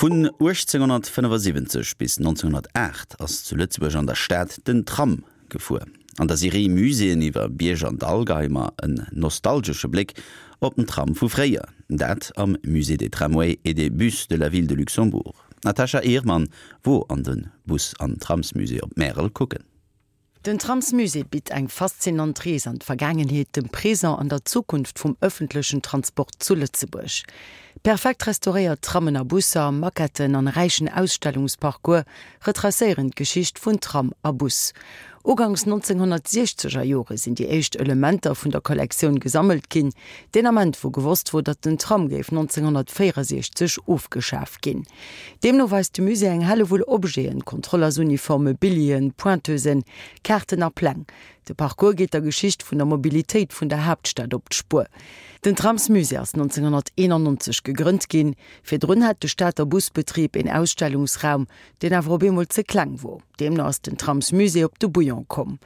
Vun 1875 bis 1908 ass zu Lëtzebuerg an der Stad den Tram gefuer. An der Serie Muséeën iwwer Bierg an Dall geheie mer en nostalgesche Bléck op den Tram vu fréier, dat am Musée des Tramways et des Bus de la Ville de Luxembourg. D'Natasha Ehrmann wor an de Bus an Tramsmusée op Märel kucken. Den Tramsmusée bitt eng faszinant Rees an d'Vergaangenheet, dem Présent an der Zukunft vum ëffentlechen Transport zu Lëtzebuerg. Perfekt restauréiert Trammen a Busser, Maquetten an e räichen Ausstellungsparcours retracéieren d'Geschicht vun Tram a Bus. Ugangs 1960 er Jore sinn déi éischt Elementer vun der Kollektioun gesammelt ginn, deen Ament wou gewosst wor, datt den Tram géif 1964 ofgeschaf ginn. Deemno weist de Musée eng Hellewull Objeten, Kontrollersuniforme, Billien, Pointeusen, Kaarten a Pläng. De Parcours geet der Geschicht vun der Mobilitéit vun der Haaptstad op d'Spuer. Den Tramsmusée ass 1991 gegrënnt ginn. Virdrun hat de Stater Busbetrib een Ausstellungsraum, deen awer op eemol ze kleng wor. Deemno ass den Tramsmusée op de Bouillon komm.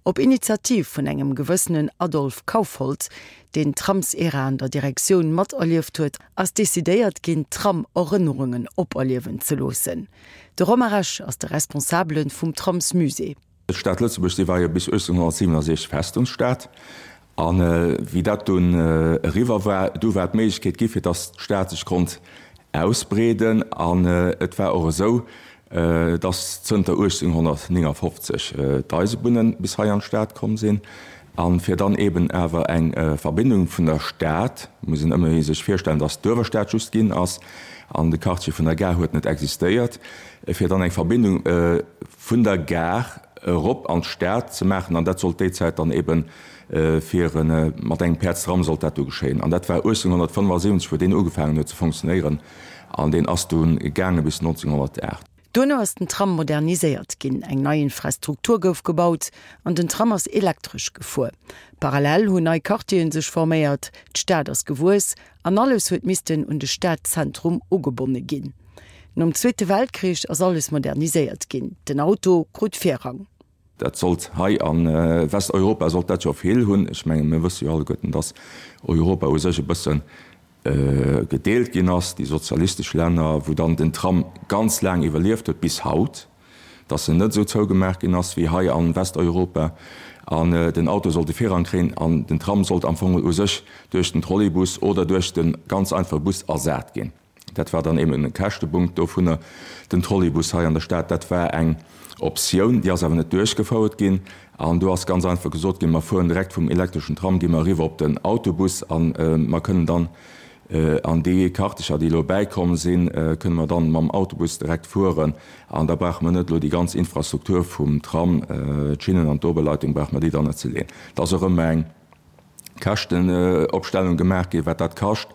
Op Initiativ vun engem gewëssenen Adolphe Kaufhold, deen d'Tramsera an der Direktioun materlieft huet, ass decidéiert ginn, d'Tram-Erënnerungen operliewen ze loossen. De Romain Rech ass de Responsabele vum Tramsmusée. D'Stad Lëtzebuerg, déi war jo bis 1867 Festungsstad. A wéi dat dunn eriwwer war, du war d'Méiglechkeet gi fir datt d'Stad sech konnt ausbreeden. An et war och esou, datt zënter 1859 d'Eisebunne bis hei an d'Stad komm sinn. A fir dann eben awer eng Verbindung vun der Stad, muss een ëmmerhi sech virstellen, datt d'Uewerstad just ginn ass an de Quartier vun der Gare huet net existéiert, fir dann eng Verbindung vun der Gare erop an d'Stad ze maachen, an dat sollt déi Zäit dann eben fir mat engem Päerdstram sollt dat du geschéien. An dat war 1875, wou deen ugefaangen huet ze fonctionnéieren, an deen ass du gaange bis 1908. Duerno ass den Tram moderniséiert ginn, eng nei Infrastruktur gouf gebaut an den Tram ass elektresch gefuer. Parallel hunn nei Quartieren sech forméiert, d'Stad ass gewuess an alles huet missten un de Stadzentrum ugebonne ginn. Nom Zweete Weltkrich ass alles moderniséiert ginn, den Auto krut Virrang. Dat sollt hei a Westeuropa sollt dat jo vill hunn. Ech menge mir wësse jo alleguerten, datt Europa u sech e bësse gedeelt ginn ass, déi sozialistesch Länner, wou dann den Tram ganz laang iwwerlieft huet, bis haut, datt en net esou zougemaach ginn ass wéi hei a Westeuropa, an den Auto sollt de Virrang kréien an den Tram sollt am Fong u sech duerch den Trolleybus oder duerch de ganz einfache Bus ersat ginn. Dat war dann eben e Käschtepunkt dovunner. Den Trolleybus hei an der Stad, dat war eng Optioun, déi ass awer net duerchgefouert ginn. An do ass ganz einfach gesot ginn, mer fueren direkt vum elektreschen Tram, gi mer eriwwer op den Autobus a mer kënnen dann an déi Quartiercher, déi elo bäikomm sinn, kënne mer dann mam Autobus direkt fueren. An da brauche mer net elo déi ganz Infrastruktur vum Tram, d'Schinnen an d'Oberleitung, brauche mer déi dann net ze leeën. Dat ass och ëmmer eng. Käschtenopstellung gemaach ginn, wat dat kascht,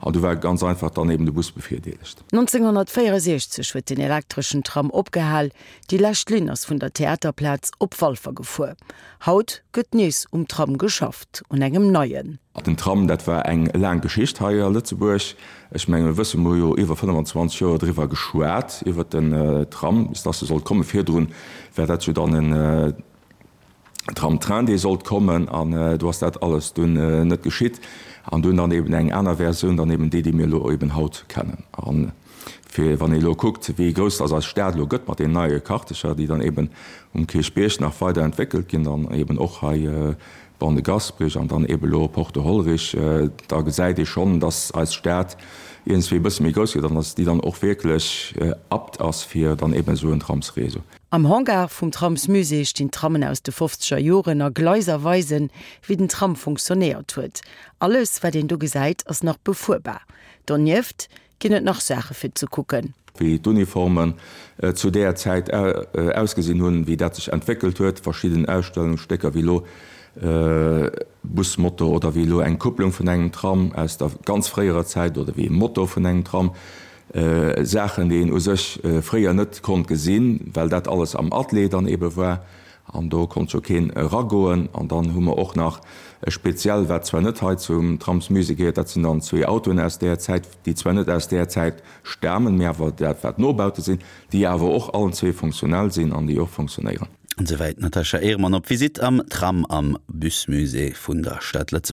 an du war ganz einfach dann eben de Bus bevirdeelegt. 1964 huet den elektreschen Tram opgehal, déi lescht Linn ass vun der Theaterplaz op Walfer gefuer. Haut gëtt nees um Tram geschafft, un engem neien. Den Tram, dat war eng laang Geschicht hei a Lëtzebuerg. Ech mengen, mir wëssen, mir hu jo iwwer 25 Joer driwwer geschwat, iwwer den Tram, bis dass e sollt kommen. Virdrun war dat jo dann en Tram-Train, dee sollt kommen, an do ass dat alles dunn net geschitt. An dunn dann eben eng aner Versioun, dann eben déi, déi mir elo eben haut kennen. A fir, wann ee elo kuckt, wéi grouss dass eis Stad elo gëtt mat deenen neie Quartiercher, déi dann eben um Kierchbierg nach weider entwéckelt ginn, dann eben och hei Ban de Gasperich an dann eben elo Porte Hollerich, da gesäit ee schonn, dass eis Stad iergendswéi e bësse méi grouss gëtt an dass déi dann och wierklech apte ass fir dann eben esou en Tramsréseau. Am Hangar vum Tramsmusée stinn Trammen aus de fofzeger Joren a Gleiser weisen, wéi den Tram funktionéiert huet. Alles, wat een do gesäit, ass nach befuerbar. Donieft ginn et nach Saache fir ze kucken. Wéi d'Uniformen zu deeër Zäit ausgesinn hunn, wéi dat sech entwéckelt huet, verschidden Ausstellungsstécker wéi elo Busmotor oder wéi elo eng Kupplung vun engem Tram aus der ganz fréierer Zäit oder wéi e Motor vun engem Tram. Saachen, déi een u sech fréier net konnt gesinn, well dat alles am Atelier dann ebe war an do konnt jo keen eragoen. An dann hu mer och nach e speziell, wat zwar net hei zum Tramsmusée gehéiert, dat sinn dann zwee Autoen aus där Zäit, déi zwar net aus där Zäit stamen, mee awer dat wat Nobaute sinn, déi awer och allen zwee funktionell sinn an déi och funktionéieren. An esouwäit d'Natasha Ehrmann op Visitt am Tram am Busmusée vun der Stad Lëtzebuerg.